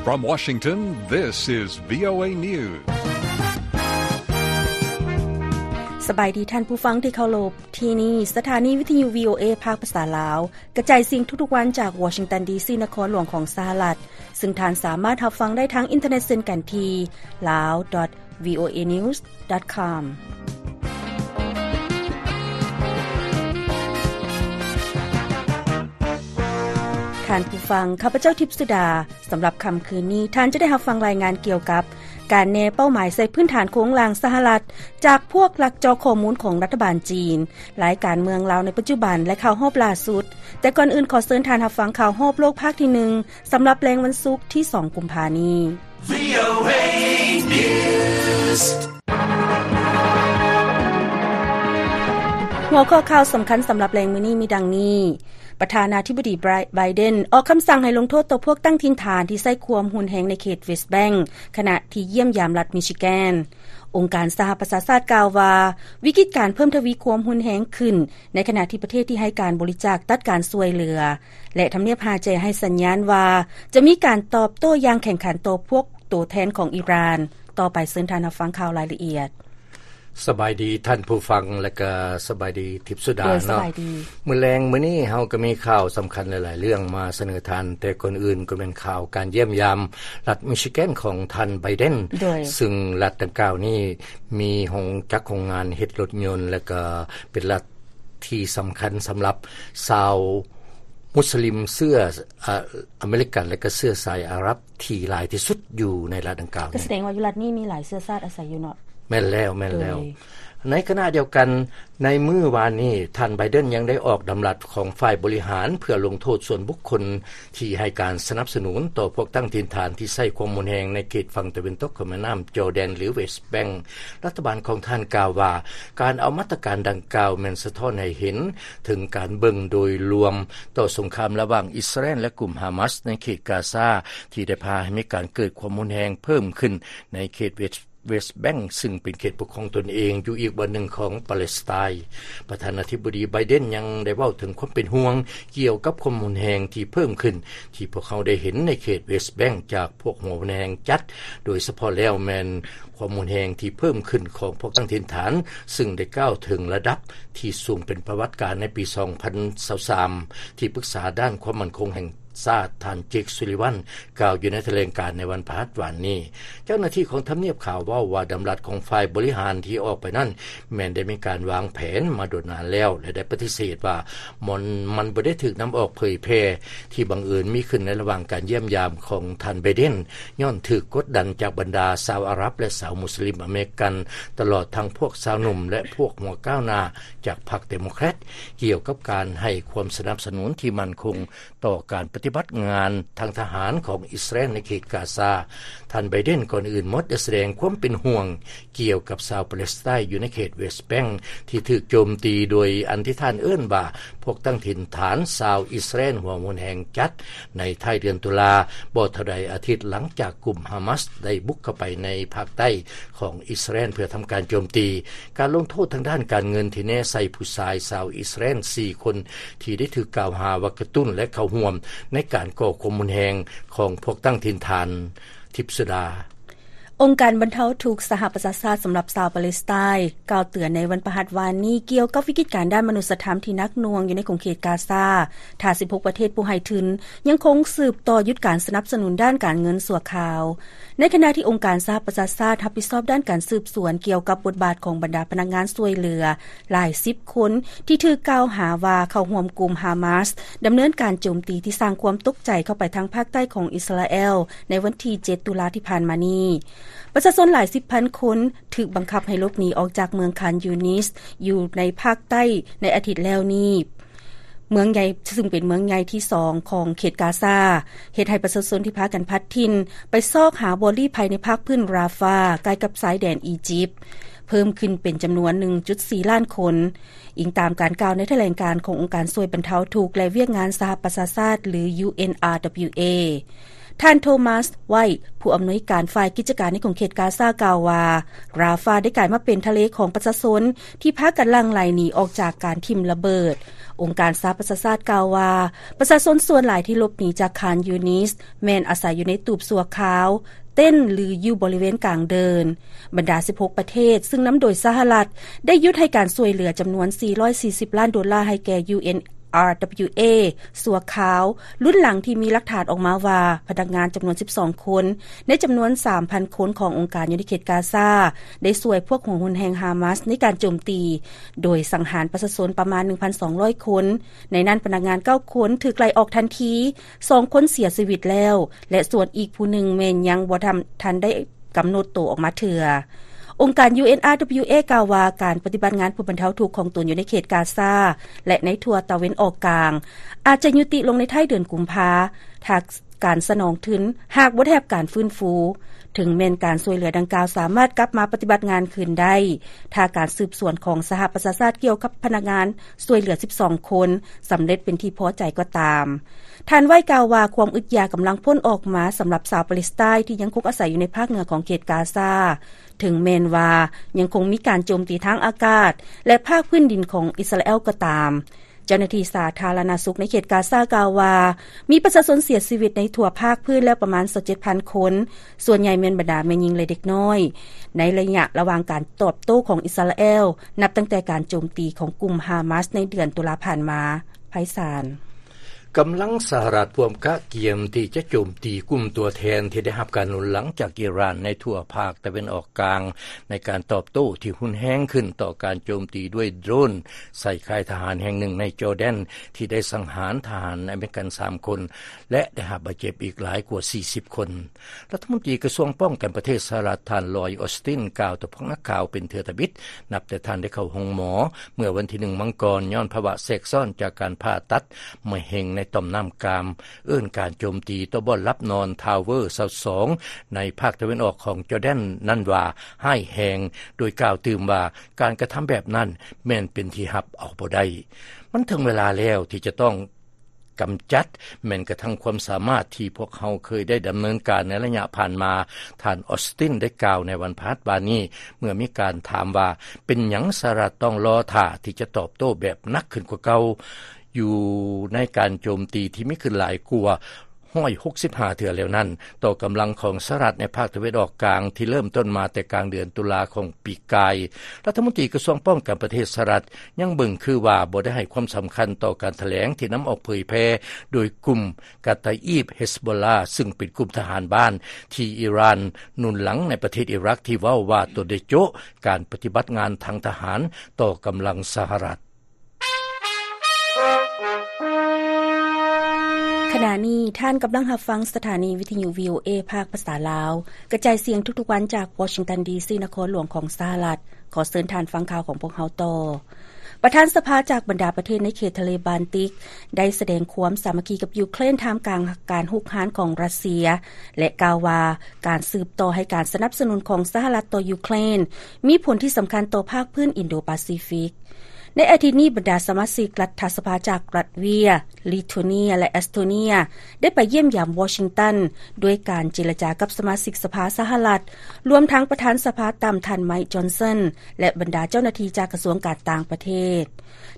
From Washington, this is VOA News. ສະບາຍດີທ່ານຜູ້ຟັງທີ່ເຄົາລົບ, ທີ່ນີ້ສະຖານີວິທະຍຸ VOA ພາກພາສາລາວ ກະຈາຍສຽງທຸກໆວັນຈາກວໍຊິງຕັນ ດີຊີ ນະຄອນຫຼວງຂອງສະຫະລັດ, ຊຶ່ງທ່ານສາມາດຮັບຟັງໄດ້ທາງອິນເຕີເນັດເຊັ່ນກັນທີ່ lawdotvoanews.com. ທ່ານຜູ້ຟັງ, ຂ້າພະເຈົ້າ ທິບສຸດາ. ສຳລັບຄ່ຳຄືນນີ້, ທ່ານຈະໄດ້ຮັບຟັງລາຍງານກ່ຽວກັບ ການແນເປົ້າໝາຍໃສ່ພື້ນຖານໂຄງລ່າງສະຫະລັດ ຈາກພວກລັກເຈາະຂໍ້ມູນຂອງລັດຖະບານຈີນ, ລາຍການເມືອງລາວໃນປັດຈຸບັນ ແລະ ຂ່າວຮອບລ່າສຸດ. ແຕ່ກ່ອນອື່ນ, ຂໍເຊີນທ່ານຮັບຟັງຂ່າວຮອບໂລກພາກທີໜຶ່ງ ສຳລັບແລງວັນສຸກທີສອງ ກຸມພານີ້. VOA News. ຫົວຂໍ້ຂ່າວສຳຄັນສຳລັບແລງມື້ນີ້ມີດັ່ງນີ້. ປະທານາທິບໍດີ ໄບເດັນ ອອກຄຳສັ່ງໃຫ້ລົງໂທດຕໍ່ພວກຕັ້ງຖິ່ນຖານທີ່ໃຊ້ຄວາມຮຸນແຮງໃນເຂດເວສແບັງ ຂະນະທີ່ຢ້ຽມຢາມລັດມິຊິແກນ. ອົງການສະຫະປະຊາຊາດກ່າວວ່າ ວິກິດການເພີ່ມທະວີຄວາມຮຸນແຮງຂຶ້ນ ໃນຂະນະທີ່ປະເທດທີ່ໃຫ້ການບໍລິຈາກຕັດການຊ່ວຍເຫຼືອ ແລະ ທຳນຽບຮາແຈໃຫ້ສັນຍານວ່າ ຈະມີການຕອບໂຕ້ຢ່າງແຂງຂັນຕໍ່ພວກໂຕແທນຂອງອີຣານ. ຕໍ່ໄປເຊີນທ່ານຮັບຟັງຂ່າວລາຍລະອຽດ. ສະບາຍດີທ່ານຜູ້ຟັງ ແລະກະສະບາຍດີທິບສຸດາເນາະ. ມື້ແລງມື້ນີ້ເຮົາກະມີຂ່າວສຳຄັນຫຼາຍໆເລື່ອງມາສະເໜີທ່ານ, ແຕ່ກ່ອນອື່ນກະແມ່ນຂ່າວການຢ້ຽມຢາມລັດມິຊິແກນຂອງທ່ານໄບເດັນ, ຊຶ່ງລັດດັ່ງກ່າວນີ້ມີໂຮງຈັກໂຮງງານເຮັດລົດຍົນ ແລະກະເປັນລັດທີ່ສຳຄັນສຳລັບຊາວມຸສລິມເຊື້ອ ອາ ອາເມລິກັນ ແລະກະເຊື້ອສາຍອາຣັບ ທີ່ຫຼາຍທີ່ສຸດຢູ່ໃນລັດດັ່ງກ່າວ. ກະສະແດງວ່າຢູ່ລັດນີ້ມີຫຼາຍເຊື້ອຊາດອາໄສຢູ່ເນາະ. ແມ່ນແລ້ວ, ແມ່ນແລ້ວ. ໃນຂະນະດຽວກັນ, ໃນມື້ວານນີ້ ທ່ານໄບເດັນຍັງໄດ້ອອກດຳລັດຂອງຝ່າຍບໍລິຫານ ເພື່ອລົງໂທດສ່ວນບຸກຄົນທີ່ໃຫ້ການສະໜັບສະໜູນຕໍ່ພວກຕັ້ງຖິ່ນຖານທີ່ໃຊ້ຄວາມຮຸນແຮງໃນເຂດຝັ່ງຕາເວັນຕົກຂອງແມ່ນ້ຳຈໍແດນ ຫຼື ເວສແບັງ. ລັດຖະບານຂອງທ່ານກ່າວວ່າ ການເອົາມາດຕະການດັ່ງກ່າວແມ່ນສະທ້ອນໃຫ້ເຫັນເຖິງການເບິ່ງໂດຍລວມ ຕໍ່ສົງຄາມລະຫວ່າງອິດສະຣາແອນ ແລະ ກຸ່ມຮາມາສໃນເຂດກາຊາ ທີ່ໄດ້ພາໃຫ້ມີການເກີດຄວາມຮຸນແຮງເພີ່ມຂຶ້ນໃນເຂດເວສ ເວສແບັງ ຊຶ່ງເປັນເຂດປົກຄອງຕົນເອງຢູ່ອີກບ່ອນໜຶ່ງຂອງປາເລສໄຕ. ປະທານາທິບໍດີໄບເດັນຍັງໄດ້ເວົ້າເຖິງຄວາມເປັນຫ່ວງກ່ຽວກັບຄວາມຮຸນແຮງທີ່ເພີ່ມຂຶ້ນ ທີ່ພວກເຮົາໄດ້ເຫັນໃນເຂດເວສແບັງຈາກພວກຫົວຮຸນແຮງຈັດ, ໂດຍສະເພາະແລ້ວແມ່ນ ຄວາມຮຸນແຮງທີ່ເພີ່ມຂຶ້ນຂອງພວກຕັ້ງຖິ່ນຖານ, ຊຶ່ງໄດ້ກ້າວເຖິງລະດັບທີ່ສູງເປັນປະຫວັດການໃນປີສອງພັນຊາວສາມ ທີ່ປຶກສາດ້ານຄວາມໝັ້ນຄົງແຫ່ງຊາດ ທ່ານ ເຈກ ຊູລີວັນ ກ່າວຢູ່ໃນຖະແຫຼງການໃນວັນພະຫັດວານນີ້. ເຈົ້າໜ້າທີ່ຂອງທຳນຽບຂາວເວົ້າວ່າ ດຳລັດຂອງຝ່າຍບໍລິຫານທີ່ອອກໄປນັ້ນ ແມ່ນໄດ້ມີການວາງແຜນມາດົນນານແລ້ວ ແລະ ໄດ້ປະຕິເສດວ່າ ມັນ ມັນບໍ່ໄດ້ຖືກນຳອອກເຜີຍແຜ່ ທີ່ບັງເອີນມີຂຶ້ນໃນລະຫວ່າງການຢ້ຽມຢາມຂອງທ່ານໄບເດັນ ຍ້ອນຖືກກົດດັນຈາກບັນດາຊາວອາຣັບ ແລະ ຊາວມຸສລິມອາເມລິກັນ, ຕະຫຼອດທັງພວກຊາວໜຸ່ມ ແລະ ພວກຫົວກ້າວໜ້າຈາກພັກເດໂມແຄຣດ ກ່ຽວກັບການໃຫ້ຄວາມສະໜັບສະໜູນທີ່ໝັ້ນຄົງຕໍ່ການປະຕິບັດງານທາງທະຫານຂອງອິດສະຣາແອນໃນເຂດກາຊາ. ທ່ານໄບເດັນ ກ່ອນອື່ນໝົດໄດ້ສະແດງຄວາມເປັນຫ່ວງ ກ່ຽວກັບຊາວປາເລສໄຕຢູ່ໃນເຂດເວສແບັງ ທີ່ຖືກໂຈມຕີໂດຍອັນທີ່ທ່ານເອີ້ນວ່າ ພວກຕັ້ງຖິ່ນຖານຊາວອິດສະຣາແອນຫົວຮຸນແຮງຈັດ ໃນທ້າຍເດືອນຕຸລາ, ບໍ່ເທົ່າໃດອາທິດຫຼັງຈາກກຸ່ມຮາມາສໄດ້ບຸກເຂົ້າໄປໃນພາກໃຕ້ຂອງອິດສະຣາແອນເພື່ອທຳການໂຈມຕີ. ການລົງໂທດທາງດ້ານການເງິນທີ່ແນໃສ່ຜູ້ຊາຍຊາວອິດສະຣາແອນສີ່ຄົນ ທີ່ໄດ້ຖືກກ່າວຫາວ່າກະຕຸ້ນ ແລະ ເຂົ້າຮ່ວມໃນການກໍ່ຄວາມຮຸນແຮງຂອງພວກຕັ້ງຖິ່ນຖານ. ທິບສຸດາ. ອົງການບັນເທົາທຸກສະຫະປະຊາຊາດສຳລັບຊາວປາເລສໄຕ ກ່າວເຕືອນໃນວັນພະຫັດວານນີ້ ກ່ຽວກັບວິກິດການດ້ານມະນຸດສະທຳທີ່ໜັກໜ່ວງຢູ່ໃນຂົງເຂດກາຊາ ຖ້າສິບຫົກປະເທດຜູ້ໃຫ້ທຶນຍັງຄົງສືບຕໍ່ຢຸດການສະໜັບສະໜູນດ້ານການເງິນຊົ່ວຄາວ. ໃນຂະນະທີ່ອົງການສະຫະປະຊາຊາດຮັບຜິດຊອບດ້ານການສືບສວນກ່ຽວກັບບົດບາດຂອງບັນດາພະນັກງານຊ່ວຍເຫຼືອ ຫຼາຍສິບຄົນທີ່ຖືກກ່າວຫາວ່າເຂົ້າຮ່ວມກຸ່ມຮາມາສ ດຳເນີນການໂຈມຕີທີ່ສ້າງຄວາມຕົກໃຈເຂົ້າໄປທາງພາກໃຕ້ຂອງອິດສະຣາແອລ ໃນວັນທີເຈັດ ຕຸລາທີ່ຜ່ານມານີ້. ປະຊາຊົນຫຼາຍສິບພັນຄົນຖືກບັງຄັບໃຫ້ຫຼົບໜີອອກຈາກເມືອງຄານຢູນິສ ຢູ່ໃນພາກໃຕ້ໃນອາທິດແລ້ວນີ້. ເມືອງໃຫຍ່ ຊຶ່ງເປັນເມືອງໃຫຍ່ທີສອງຂອງເຂດກາຊາ ເຮັດໃຫ້ປະຊາຊົນທີ່ພາກັນພັດຖິ່ນໄປຊອກຫາບ່ອນລີ້ໄພໃນພາກພື້ນຣາຟາ ໃກ້ກັບຊາຍແດນອີຢິບ ເພີ່ມຂຶ້ນເປັນຈຳນວນໜຶ່ງຈຸດສີ່ລ້ານຄົນ, ອີງຕາມການກ່າວໃນຖະແຫຼງການຂອງອົງການຊ່ວຍບັນເທົາທຸກ ແລະ ວຽກງານສະຫະປະຊາຊາດ ຫຼື UNRWA. ທ່ານໂທມັສ ໄວ ຜູ້ອຳນວຍການຝ່າຍກິດຈະການໃນຂົງເຂດກາຊາ ກ່າວວ່າ ຣາຟາ ໄດ້ກາຍມາເປັນທະເລຂອງປະຊາຊົນ ທີ່ພາກັນຫຼັ່ງໄຫຼໜີອອກຈາກການຖິ້ມລະເບີດ. ອົງການສະຫະປະຊາຊາດກ່າວວ່າ ປະຊາຊົນສ່ວນຫຼາຍທີ່ຫຼົບໜີຈາກຄານຢູນິສ ແມ່ນອາໄສຢູ່ໃນຕູບຊົ່ວຄາວ, ເຕັນ ຫຼື ຢູ່ບໍລິເວນກາງເດີ່ນ. ບັນດາສິບຫົກປະເທດ ຊຶ່ງນຳໂດຍສະຫະລັດ ໄດ້ຢຸດໃຫ້ການຊ່ວຍເຫຼືອຈຳນວນສີ່ຮ້ອຍສີ່ສິບລ້ານໂດລາ ໃຫ້ແກ່ UNRWA ຊົ່ວຄາວ ລຸ້ນຫຼັງທີ່ມີຫຼັກຖານອອກມາວ່າ ພະນັກງານຈຳນວນສິບສອງຄົນ ໃນຈຳນວນສາມພັນຄົນຂອງອົງການຢູ່ໃນເຂດກາຊາ ໄດ້ຊ່ວຍພວກຫົວຮຸນແຮງຮາມາສໃນການໂຈມຕີ ໂດຍສັງຫານປະຊາຊົນປະມານໜຶ່ງພັນສອງຮ້ອຍຄົນ, ໃນນັ້ນພະນັກງານເກົ້າຄົນຖືກໄລ່ອອກທັນທີ, ສອງຄົນເສຍຊີວິດແລ້ວ ແລະ ສ່ວນອີກຜູ້ໜຶ່ງແມ່ນຍັງບໍ່ທັນ ທັນໄດ້ກຳນົດໂຕອອກມາເທື່ອ. ອົງການ UNRWA ກ່າວວ່າ ການປະຕິບັດງານຜູ້ບັນເທົາທຸກຂອງຕົນຢູ່ໃນເຂດກາຊາ ແລະ ໃນທົ່ວຕາເວັນອອກກາງ ອາດຈະຍຸຕິລົງໃນທ້າຍເດືອນກຸມພາ ຖ້າການສະໜອງທຶນຫາກບໍ່ໄດ້ຮັບການຟື້ນຟູ, ເຖິງແມ່ນການຊ່ວຍເຫຼືອດັ່ງກ່າວສາມາດກັບມາປະຕິບັດງານຄືນໄດ້ ຖ້າການສືບສວນຂອງສະຫະປະຊາຊາດກ່ຽວກັບພະນັກງານຊ່ວຍເຫຼືອສິບສອງຄົນສຳເລັດເປັນທີ່ພໍໃຈກໍຕາມ. ທ່ານໄວກ່າວວ່າ ຄວາມອຶດຢາກກຳລັງພົ້ນອອກມາສຳລັບຊາວປາເລສໄຕນ໌ທີ່ຍັງຄົງອາໄສຢູ່ໃນພາກເໜືອຂອງເຂດກາຊາ, ເຖິງແມ່ນວ່າຍັງຄົງມີການໂຈມຕີທາງອາກາດ ແລະ ພາກພື້ນດິນຂອງອິດສະຣາແອລກໍຕາມ. ເຈົ້າໜ້າທີ່ສາທາລະນະສຸກໃນເຂດກາຊາກ່າວວ່າ ມີປະຊາຊົນເສຍຊີວິດໃນທົ່ວພາກພື້ນແລ້ວປະມານຊາວເຈັດພັນຄົນ, ສ່ວນໃຫຍ່ແມ່ນບັນດາແມ່ຍິງ ແລະ ເດັກນ້ອຍ, ໃນໄລຍະລະຫວ່າງການຕອບໂຕ້ຂອງອິດສະຣາແອລ ນັບຕັ້ງແຕ່ການໂຈມຕີຂອງກຸ່ມຮາມາສໃນເດືອນຕຸລາຜ່ານມາ. ໄພສານ. ກຳລັງສະຫະລັດພວມກະກຽມທີ່ຈະໂຈມຕີກຸ່ມຕົວແທນທີ່ໄດ້ຮັບການໜູນຫຼັງຈາກອີຣານໃນທົ່ວພາກຕາເວັນອອກກາງ ໃນການຕອບໂຕ້ທີ່ຮຸນແຮງຂຶ້ນຕໍ່ການໂຈມຕີດ້ວຍໂດຣນໃສ່ຄ້າຍທະຫານແຫ່ງໜຶ່ງໃນຈໍແດນ ທີ່ໄດ້ສັງຫານທະຫານອາເມລິກັນສາມຄົນ ແລະ ໄດ້ຮັບບາດເຈັບອີກຫຼາຍກວ່າສີ່ສິບຄົນ. ລັດຖະມົນຕີກະຊວງປ້ອງກັນປະເທດສະຫະລັດ ທ່ານ ລອຍ ອອສຕິນ ກ່າວຕໍ່ພວກນັກຂ່າວເປັນເທື່ອທຳອິດ ນັບແຕ່ທ່ານໄດ້ເຂົ້າໂຮງໝໍເມື່ອວັນທີໜຶ່ງມັງກອນ ຍ້ອນພາວະແຊກຊ້ອນຈາກການຜ່າຕັດມະເຮັງໃນຕ່ອມນ້ຳກາມ, ເອີ້ນການໂຈມຕີຕໍ່ບ່ອນຫຼັບນອນທາວເວີຊາວສອງໃນພາກຕາເວັນອອກຂອງຈໍແດນນັ້ນວ່າຮ້າຍແຮງ, ໂດຍກ່າວຕື່ມວ່າ ການກະທຳແບບນັ້ນແມ່ນເປັນທີ່ຮັບເອົາບໍ່ໄດ້. ມັນເຖິງເວລາແລ້ວທີ່ຈະຕ້ອງ ກຳຈັດແມ່ນກະທັ່ງຄວາມສາມາດທີ່ພວກເຮົາເຄີຍໄດ້ດຳເນີນການໃນໄລຍະຜ່ານມາ, ທ່ານ ອອສຕິນ ໄດ້ກ່າວໃນວັນພະຫັດວານນີ້ ເມື່ອມີການຖາມວ່າ ເປັນຫຍັງສະຫະລັດຕ້ອງລໍຖ້າທີ່ຈະຕອບໂຕ້ແບບໜັກຂຶ້ນກວ່າເກົ່າ ຢູ່ໃນການໂຈມຕີທີ່ມີຂຶ້ນຫຼາຍກວ່າຮ້ອຍຫົກສິບຫ້າເທື່ອແລ້ວນັ້ນ ຕໍ່ກຳລັງຂອງສະຫະລັດໃນພາກຕາເວັນອອກກາງ ທີ່ເລີ່ມຕົ້ນມາແຕ່ກາງເດືອນຕຸລາຂອງ ປີກາຍ. ລັດຖະມົນຕີກະຊວງປ້ອງກັນປະເທດສະຫະລັດ ຍັງເບິ່ງຄືວ່າບໍ່ໄດ້ໃຫ້ຄວາມສຳຄັນຕໍ່ການຖະແຫຼງທີ່ນຳອອກເຜີຍແຜ່ໂດຍກຸ່ມກາຕາອີບ ເຮັສໂບລາ ຊຶ່ງເປັນກຸ່ມທະຫານບ້ານທີ່ອີຣານໜູນຫຼັງໃນປະເທດອີຣັກ ທີ່ເວົ້າວ່າຕົນໄດ້ໂຈະການປະຕິບັດງານທາງທະຫານຕໍ່ກຳລັງສະຫະລັດ. ຂະນະນີ້ທ່ານກຳລັງຮັບຟັງສະຖານີວິທະຍຸ ວີໂອເອ ພາກພາສາລາວ ກະຈາຍສຽງທຸກໆວັນຈາກວໍຊິງຕັນ ດີຊີ ນະຄອນຫຼວງຂອງສະຫະລັດ. ຂໍເຊີນທ່ານຟັງຂ່າວຂອງພວກເຮົາຕໍ່. ປະທານສະພາຈາກບັນດາປະເທດໃນເຂດທະເລບານຕິກ ໄດ້ສະແດງຄວາມສາມັກຄີກັບຢູເຄຣນ ທ່າມກາງການຮຸກຮານຂອງຣັດເຊຍ ແລະ ກ່າວວ່າການສືບຕໍ່ໃຫ້ການສະໜັບສະໜູນຂອງສະຫະລັດຕໍ່ຢູເຄຣນ ມີຜົນທີ່ສຳຄັນຕໍ່ພາກພື້ນອິນໂດປາຊີຟິກ. ໃນອາທິດນີ້, ບັນດາສະມາຊິກລັດຖະສະພາຈາກລັດເວຍ, ລິໂທເນຍ ແລະ ເອສໂຕເນຍ ໄດ້ໄປຢ້ຽມຢາມວໍຊິງຕັນ ດ້ວຍການເຈລະຈາກັບສະມາຊິກສະພາສະຫະລັດ, ລວມທັງປະທານສະພາຕ່ຳທ່ານ ໄມຄ໌ ຈອນສັນ ແລະ ບັນດາເຈົ້າໜ້າທີ່ຈາກກະຊວງການຕ່າງປະເທດ.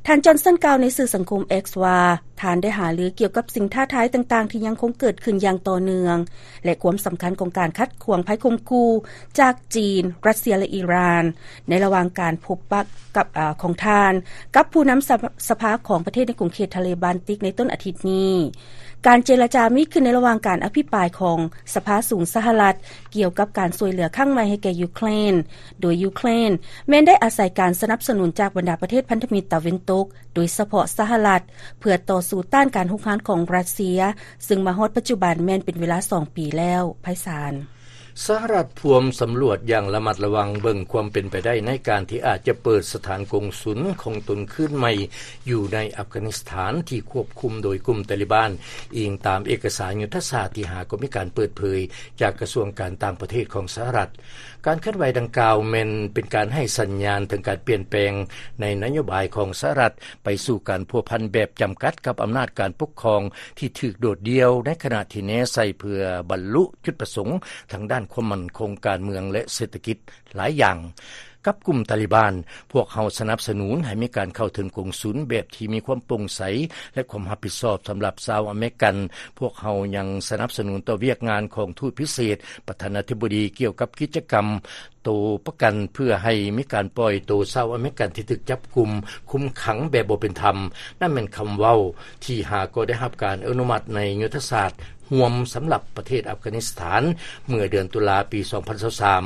ທ່ານ ຈອນສັນ ກ່າວໃນສື່ສັງຄົມ X ວ່າ ທ່ານໄດ້ຫາລືກ່ຽວກັບສິ່ງທ້າທາຍຕ່າງໆທີ່ຍັງຄົງເກີດຂຶ້ນຢ່າງຕໍ່ເນື່ອງ ແລະ ຄວາມສຳຄັນຂອງການຂັດຂວາງໄພຂົ່ມຂູ່ຈາກຈີນ, ຣັດເຊຍ ແລະ ອີຣານ ໃນລະຫວ່າງການພົບປະກັບ ອາ ຂອງທ່ານກັບຜູ້ນຳສະ ສະພາຂອງປະເທດໃນຂົງເຂດທະເລບານຕິກໃນຕົ້ນອາທິດນີ້. ການເຈລະຈາມີຂຶ້ນໃນລະຫວ່າງການອະພິປາຍຂອງສະພາສູງສະຫະລັດ ກ່ຽວກັບການຊ່ວຍເຫຼືອຄັ້ງໃໝ່ໃຫ້ແກ່ຢູເຄຣນ, ໂດຍຢູເຄຣນແມ່ນໄດ້ອາໄສການສະໜັບສະໜູນຈາກບັນດາປະເທດພັນທະມິດຕາເວັນຕົກ, ໂດຍສະເພາະສະຫະລັດ, ເພື່ອຕໍ່ສູ້ຕ້ານການຮຸກຮານຂອງຣັດເຊຍ, ຊຶ່ງມາຮອດປັດຈຸບັນແມ່ນເປັນເວລາສອງປີແລ້ວ. ໄພສານ. ສະຫະລັດພວມສຳຫຼວດຢ່າງລະມັດລະວັງເບິ່ງຄວາມເປັນໄປໄດ້ໃນການທີ່ອາດຈະເປີດສະຖານກົງສຸນຂອງຕົນຄືນໃໝ່ຢູ່ໃນອັຟການິສຖານທີ່ຄວບຄຸມໂດຍກຸ່ມຕາລີບານ, ອີງຕາມເອກະສານຍຸດທະສາດທີຫ້າ ກໍມີການເປີດເຜີຍຈາກກະຊວງການຕ່າງປະເທດຂອງສະຫະລັດ. ການເຄື່ອນໄຫວດັ່ງກ່າວແມ່ນເປັນການໃຫ້ສັນຍານເຖິງການປ່ຽນແປງໃນນະໂຍບາຍຂອງສະຫະລັດ ໄປສູ່ການພົວພັນແບບຈຳກັດກັບອຳນາດການປົກຄອງທີ່ຖືກໂດດດ່ຽວ, ໃນຂະນະທີ່ແນໃສ່ເພື່ອບັນລຸຈຸດປະສົງທາງດ້ານຄວາມໝັ້ນຄົງ, ການເມືອງ ແລະ ເສດຖະກິດຫຼາຍຢ່າງ. ກັບກຸ່ມຕາລີບານ, ພວກເຮົາສະໜັບສະໜູນໃຫ້ມີການເຂົ້າເຖິງກົງສຸນແບບທີ່ມີຄວາມໂປ່ງໃສ ແລະ ຄວາມຮັບຜິດຊອບສຳລັບຊາວອາເມລິກັນ. ພວກເຮົາຍັງສະໜັບສະໜູນຕໍ່ວຽກງານຂອງທູດພິເສດປະທານາທິບໍດີກ່ຽວກັບກິດຈະກຳ ໂຕປະກັນເພື່ອໃຫ້ມີການປ່ອຍໂຕຊາວອາເມລິກັນທີ່ຖືກຈັບກຸມຄຸມຂັງແບບບໍ່ເປັນທຳ. ນັ້ນແມ່ນຄຳເວົ້າທີ່ຫາກໍໄດ້ຮັບການອະນຸມັດໃນຍຸດທະສາດຮ່ວມສຳລັບປະເທດອັຟການິສຖານ ເມື່ອເດືອນຕຸລາປີສອງພັນຊາວສາມ.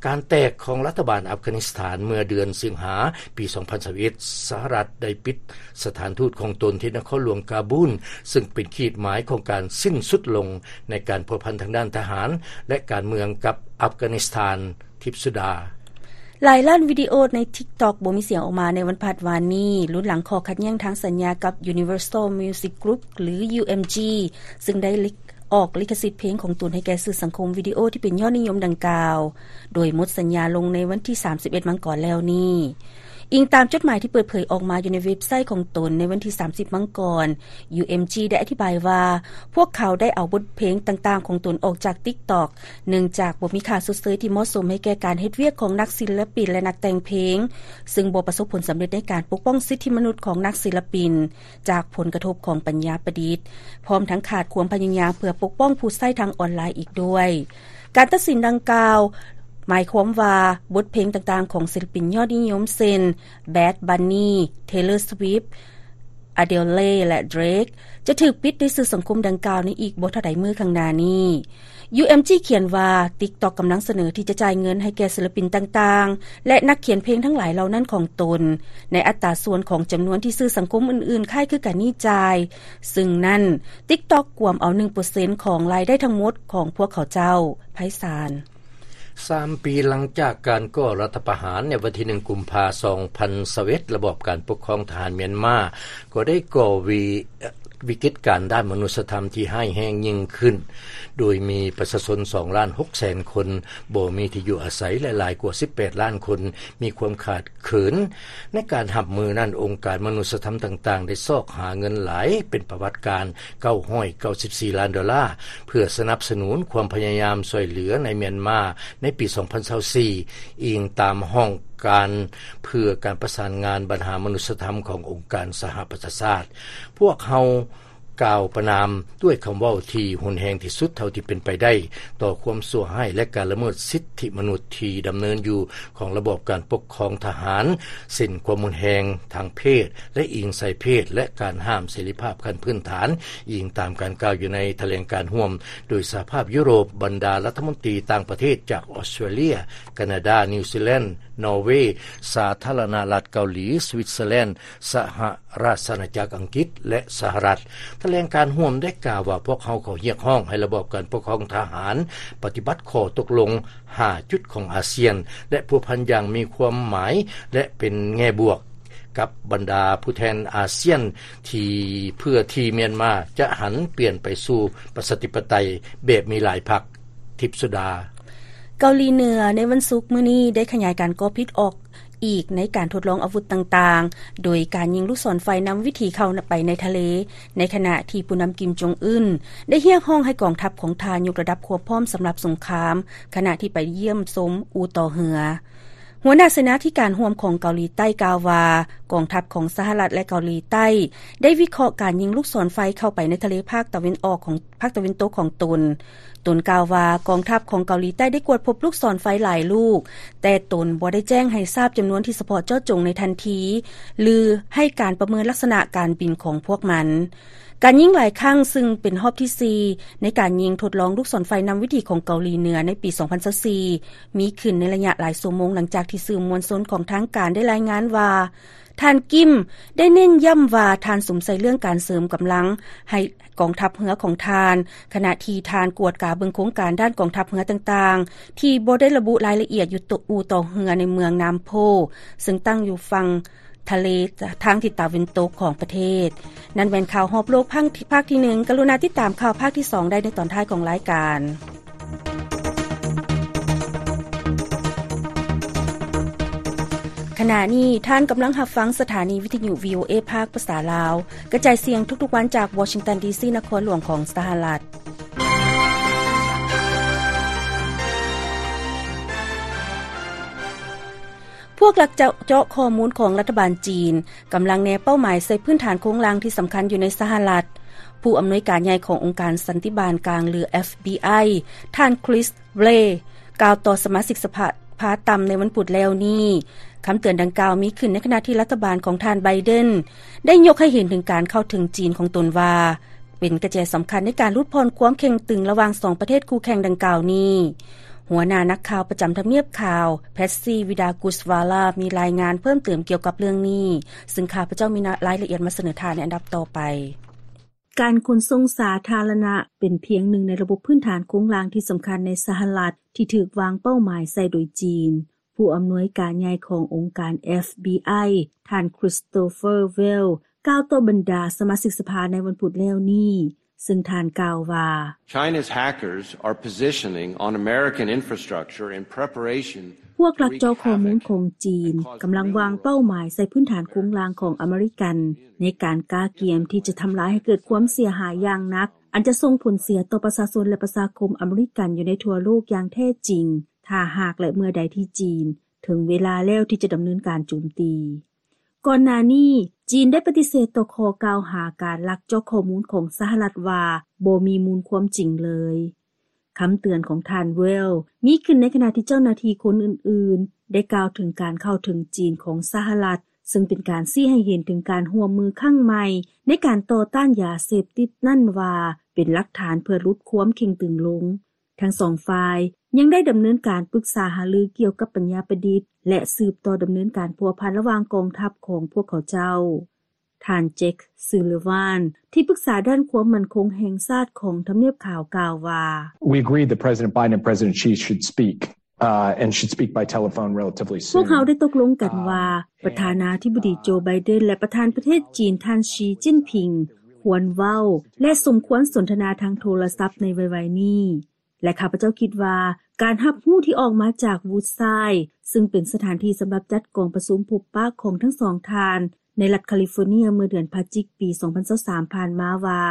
ການແຕກຂອງລັດຖະບານອັຟການິສຖານເມື່ອເດືອນສິງຫາປີສອງພັນຊາວເອັດ ສະຫະລັດໄດ້ປິດສະຖານທູດຂອງຕົນທີ່ນະຄອນຫຼວງກາບູນ ເຊິ່ງເປັນຂີດໝາຍຂອງການສິ້ນສຸດລົງໃນການພົວພັນທາງດ້ານທະຫານ ແລະ ການເມືອງກັບອັຟການິສຖານ. ທິບສຸດາ. ຫຼາຍລ້ານວິດີໂອໃນ TikTok ບໍ່ມີສຽງອອກມາໃນວັນພະຫັດວານນີ້, ລຸນຫຼັງຂໍ້ຂັດແຍ່ງທາງສັນຍາກັບ Universal Music Group ຫຼື UMG ເຊິ່ງໄດ້ລິ- ອອກລິຂະສິດເພງຂອງຕົນໃຫ້ແກ່ສື່ສັງຄົມວິດີໂອທີ່ເປັນຍອດນິຍົມດັ່ງກ່າວ, ໂດຍໝົດສັນຍາລົງໃນວັນທີສາມສິບເອັດມັງກອນແລ້ວນີ້. ອີງຕາມຈົດໝາຍທີ່ເປີດເຜີຍອອກມາຢູ່ໃນເວັບໄຊຂອງຕົນໃນວັນທີສາມສິບມັງກອນ, UMG ໄດ້ອະທິບາຍວ່າ ພວກເຂົາໄດ້ເອົາບົດເພງຕ່າງໆຂອງຕົນອອກຈາກ TikTok ເນື່ອງຈາກບໍ່ມີຄ່າຊົດເຊີຍທີ່ເໝາະສົມໃຫ້ແກ່ການເຮັດວຽກຂອງນັກສິລະປິນ ແລະ ນັກແຕ່ງເພງ, ເຊິ່ງບໍ່ປະສົບຜົນສຳເລັດໃນການປົກປ້ອງສິດທິມະນຸດຂອງນັກສິລະປິນຈາກຜົນກະທົບຂອງປັນຍາປະດິດ, ພ້ອມທັງຂາດຄວາມພະຍາຍາມເພື່ອປົກປ້ອງຜູ້ໃຊ້ທາງອອນລາຍອີກດ້ວຍ. ການຕັດສິນດັ່ງກ່າວ ໝາຍຄວາມວ່າບົດເພງຕ່າງໆຂອງສິລະປິນຍອດນິຍົມເຊັ່ນ Bad Bunny, Taylor Swift, Adele ແລະ Drake ຈະຖືກປິດໃນສື່ສັງຄົມດັ່ງກ່າວໃນອີກບໍ່ເທົ່າໃດມື້ຂ້າງໜ້ານີ້. UMG ຂຽນວ່າ TikTok ກຳລັງສະເໜີທີ່ຈະຈ່າຍເງິນໃຫ້ແກ່ສິລະປິນຕ່າງໆ ແລະ ນັກຂຽນເພງທັງຫຼາຍເຫຼົ່ານັ້ນຂອງຕົນ ໃນອັດຕາສ່ວນຂອງຈຳນວນທີ່ສື່ສັງຄົມອື່ນໆຄ້າຍຄືກັນນີ້ຈ່າຍ, ເຊິ່ງນັ້ນ TikTok ກວມເອົາໜຶ່ງເປີເຊັນຂອງລາຍໄດ້ທັງໝົດຂອງພວກເຂົາເຈົ້າ. ໄພສານ. ສາມປີຫຼັງຈາກການກໍ່ລັດຖະປະຫານໃນວັນທີໜຶ່ງ ກຸມພາ ສອງພັນຊາວເອັດ, ລະບອບການປົກຄອງທະຫານມຽນມາກໍໄດ້ກໍ່ວິ- ວິກິດການດ້ານມະນຸດສະທຳທີ່ຮ້າຍແຮງຍິ່ງຂຶ້ນ, ໂດຍມີປະຊາຊົນສອງລ້ານຫົກແສນຄົນບໍ່ມີທີ່ຢູ່ອາໄສ ແລະ ຫຼາຍກວ່າສິບແປດລ້ານຄົນມີຄວາມຂາດ ເຂີນ. ໃນການຮັບມືນັ້ນ, ອົງການມະນຸດສະທຳຕ່າງໆ ໄດ້ຊອກຫາເງິນຫຼາຍເປັນປະຫວັດການ ເກົ້າຮ້ອຍເກົ້າສິບສີ່ລ້ານໂດລາ ເພື່ອສະໜັບສະໜູນຄວາມພະຍາຍາມຊ່ວຍເຫຼືອໃນມຽນມາໃນປີສອງພັນຊາວສີ່, ອີງຕາມຫ້ອງການເພື່ອການປະສານງານບັນຫາມະນຸດສະທຳຂອງອົງການສະຫະປະຊາຊາດ. ພວກເຮົາ ກ່າວປະນາມດ້ວຍຄຳເວົ້າທີ່ຮຸນແຮງທີ່ສຸດເທົ່າທີ່ເປັນໄປໄດ້ຕໍ່ຄວາມຊົ່ວຮ້າຍ ແລະ ການລະເມີດສິດທິມະນຸດທີ່ດຳເນີນຢູ່ຂອງລະບອບການປົກຄອງທະຫານ, ເຊັ່ນ ຄວາມຮຸນແຮງທາງເພດ ແລະ ອີງໃສ່ເພດ ແລະ ການຫ້າມເສລີພາບຂັ້ນພື້ນຖານ, ອີງຕາມການກ່າວຢູ່ໃນຖະແຫຼງການຮ່ວມໂດຍສະຫະພາບຢູໂຣບ, ບັນດາລັດຖະມົນຕີຕ່າງປະເທດຈາກອອສເຕຣເລຍ, ການາດາ, ນິວຊີແລນ, ນໍເວ, ສາທາລະນະລັດເກົາຫຼີ, ສະວິດເຊີແລນ, ສະຫະ ລາຊະອານາຈັກອັງກິດ ແລະ ສະຫະລັດ. ຖະແຫຼງການຮ່ວມໄດ້ກ່າວວ່າ, ພວກເຮົາຂໍຮຽກຮ້ອງໃຫ້ລະບອບການປົກຄອງທະຫານປະຕິບັດຂໍ້ຕົກລົງຫ້າຈຸດຂອງອາຊຽນ ແລະ ພົວພັນຢ່າງມີຄວາມໝາຍ ແລະ ເປັນແງ່ບວກກັບບັນດາຜູ້ແທນອາຊຽນ ທີ່ ເພື່ອທີ່ມຽນມາຈະຫັນປ່ຽນໄປສູ່ປະຊາທິປະໄຕແບບມີຫຼາຍພັກ. ທິບສຸດາ. ເກົາຫຼີເໜືອໃນວັນສຸກມື້ນີ້ໄດ້ຂະຫຍາຍການກໍ່ພິດອອກ ອີກໃນການທົດລອງອາວຸດຕ່າງໆ ໂດຍການຍິງລູກສອນໄຟນຳວິຖີເຂົ້າໄປໃນທະເລ, ໃນຂະນະທີ່ຜູ້ນຳ ກິມ ຈົງອຶນ ໄດ້ຮຽກຮ້ອງໃຫ້ກອງທັບຂອງທ່ານຍົກລະດັບຄວາມພ້ອມສຳລັບສົງຄາມ ຂະນະທີ່ໄປຢ້ຽມຊົມອູ່ຕໍ່ເຮືອ. ຫົວໜ້າເສນາທິການຮ່ວມຂອງເກົາຫຼີໃຕ້ກ່າວວ່າ, ກອງທັບຂອງສະຫະລັດ ແລະ ເກົາຫຼີໃຕ້ ໄດ້ວິເຄາະການຍິງລູກສອນໄຟເຂົ້າໄປໃນທະເລພາກຕາເວັນອອກຂອງ ພາກຕາເວັນຕົກຂອງຕົນ. ຕົນກ່າວວ່າ ກອງທັບຂອງເກົາຫຼີໃຕ້ໄດ້ກວດພົບລູກສອນໄຟຫຼາຍລູກ, ແຕ່ຕົນບໍ່ໄດ້ແຈ້ງໃຫ້ຊາບຈຳນວນທີ່ສະເພາະເຈາະຈົງໃນທັນທີ ຫຼື ໃຫ້ການປະເມີນລັກສະນະການບິນຂອງພວກມັນ. ການຍິງຫຼາຍຄັ້ງ, ຊຶ່ງເປັນຮອບທີສີ່ ໃນການຍິງທົດລອງລູກສອນໄຟນຳວິຖີຂອງເກົາຫຼີເໜືອໃນປີສອງພັນຊາວສີ່ ມີຂຶ້ນໃນໄລຍະຫຼາຍຊົ່ວໂມງ ຫຼັງຈາກທີ່ສື່ມວນຊົນຂອງທາງການໄດ້ລາຍງານວ່າ ທ່ານກິມໄດ້ເນັ້ນຢ້ຳວ່າ ທ່ານສຸມໃສ່ເລື່ອງການເສີມກຳລັງໃຫ້ກອງທັບເຮືອຂອງທ່ານ, ຂະນະທີ່ທ່ານກວດກາເບິ່ງໂຄງການດ້ານກອງທັບເຮືອຕ່າງໆ ທີ່ບໍ່ໄດ້ລະບຸລາຍລະອຽດຢູ່ອູ່ຕໍ່ເຮືອໃນເມືອງນາມໂພ ເຊິ່ງຕັ້ງຢູ່ຝັ່ງທະເລທາງທິດຕາເວັນຕົກຂອງປະເທດ. ນັ້ນແມ່ນຂ່າວຮອບໂລກພາກທີໜຶ່ງ. ກະລຸນາຕິດຕາມຂ່າວພາກທີສອງໄດ້ໃນຕອນທ້າຍຂອງລາຍການ. ຂະນະນີ້ທ່ານກຳລັງຮັບຟັງສະຖານີວິທະຍຸ ວີໂອເອ ພາກພາສາລາວ ກະຈາຍສຽງທຸກໆວັນຈາກວໍຊິງຕັນ ດີຊີ ນະຄອນຫຼວງຂອງສະຫະລັດ. ພວກລັກເຈາະ ເຈາະຂໍ້ມູນຂອງລັດຖະບານຈີນ ກຳລັງແນເປົ້າໝາຍໃສ່ພື້ນຖານໂຄງລ່າງທີ່ສຳຄັນຢູ່ໃນສະຫະລັດ. ຜູ້ອຳນວຍການໃຫຍ່ຂອງອົງການສັນຕິບານກາງ ຫຼື ເອັຟບີໄອ ທ່ານ Chris Wray ກ່າວຕໍ່ສະມາຊິກສະພາຕ່ຳໃນວັນພຸດແລ້ວນີ້. ຄຳເຕືອນດັ່ງກ່າວມີຂຶ້ນໃນຂະນະທີ່ລັດຖະບານຂອງທ່ານ Biden ໄດ້ຍົກໃຫ້ເຫັນເຖິງການເຂົ້າເຖິງຈີນຂອງຕົນວ່າ ເປັນກະແຈສຳຄັນໃນການຫຼຸດຜ່ອນຄວາມເຄັ່ງຕຶງລະຫວ່າງສອງປະເທດຄູ່ແຂ່ງດັ່ງກ່າວນີ້. ຫົວໜ້ານັກຂ່າວປະຈຳທຳນຽບຂາວ Patsy Widakuswara ມີລາຍງານເພີ່ມເຕີມກ່ຽວກັບເລື່ອງນີ້, ຊຶ່ງຂ້າພະເຈົ້າມີລາຍລະອຽດມາສະເໜີທ່ານໃນອັນດັບຕໍ່ໄປ. ການຂົນສົ່ງສາທາລະນະເປັນພຽງໜຶ່ງໃນລະບົບພື້ນຖານໂຄງລ່າງທີ່ສຳຄັນໃນສະຫະລັດ ທີ່ຖືກວາງເປົ້າໝາຍໃສ່ໂດຍຈີນ. ຜູ້ອຳນວຍການໃຫຍ່ຂອງອົງການ ເອັຟບີໄອ ທ່ານ Christopher Wray ກ່າວຕໍ່ບັນດາສະມາຊິກສະພາໃນວັນພຸດແລ້ວນີ້, ຊຶ່ງທ່ານກ່າວວ່າ China's hackers are positioning on American infrastructure in preparation ພວກລັກເຈາະຂໍ້ມູນຂອງຈີນກຳລັງວາງເປົ້າໝາຍໃສ່ພື້ນຖານໂຄງລ່າງຂອງອາເມລິກັນ ໃນການກະກຽມທີ່ຈະທຳລາຍໃຫ້ເກີດຄວາມເສຍຫາຍຢ່າງໜັກ, ອັນຈະສົ່ງຜົນເສຍຕໍ່ປະຊາຊົນ ແລະ ປະຊາຄົມອາເມລິກັນຢູ່ໃນທົ່ວໂລກຢ່າງແທ້ຈິງ ຖ້າຫາກ ແລະ ເມື່ອໃດທີ່ຈີນເຖິງເວລາແລ້ວທີ່ຈະດຳເນີນການໂຈມຕີ. ກ່ອນໜ້ານີ້ ຈີນໄດ້ປະຕິເສດຕໍ່ຂໍ້ກ່າວຫາການລັກເຈາະຂໍ້ມູນຂອງສະຫະລັດວ່າ ບໍ່ມີມູນຄວາມຈິງເລີຍ. ຄຳເຕືອນຂອງທ່ານ Wray ມີຂຶ້ນໃນຂະນະທີ່ເຈົ້າໜ້າທີ່ຄົນອື່ນໆ ໄດ້ກ່າວເຖິງການເຂົ້າເຖິງຈີນຂອງສະຫະລັດ, ຊຶ່ງເປັນການຊີ້ໃຫ້ເຫັນເຖິງການຮ່ວມມືຄັ້ງໃໝ່ໃນການຕໍ່ຕ້ານຢາເສບຕິດນັ້ນວ່າ ເປັນຫຼັກຖານເພື່ອຫຼຸດຄວາມເຄັ່ງຕຶງລົງ. ທັງສອງຝ່າຍຍັງໄດ້ດຳເນີນການປຶກສາຫາລືກ່ຽວກັບປັນຍາປະດິດ ແລະ ສືບຕໍ່ດຳເນີນການພົວພັນລະຫວ່າງກອງທັບຂອງພວກເຂົາເຈົ້າ. ທ່ານ Jake Sullivan ທີ່ປຶກສາດ້ານຄວາມໝັ້ນຄົງແຫ່ງຊາດຂອງທຳນຽບຂາວ ກ່າວວ່າ We agree that President Biden and President Xi should speak, uh, and should speak by telephone relatively soon. ພວກເຮົາໄດ້ຕົກລົງກັນວ່າ ປະທານາທິບໍດີ ໂຈ ໄບເດັນ ແລະ ປະທານປະເທດຈີນ ທ່ານ ຊີ ຈິ້ນຜິງ ຄວນເວົ້າ ແລະ ສົມຄວນສົນທະນາທາງໂທລະສັບໃນໄວໆນີ້. ແລະ ຂ້າພະເຈົ້າຄິດວ່າ ການຮັບຮູ້ທີ່ອອກມາຈາກ Woodside ຊຶ່ງເປັນສະຖານທີ່ສຳລັບຈັດກອງປະຊຸມພົບປະຂອງທັງສອງທ່ານ ໃນລັດຄາລິຟໍເນຍ ເມື່ອເດືອນພະຈິກ ປີສອງພັນຊາວສາມ ຜ່ານມາວ່າ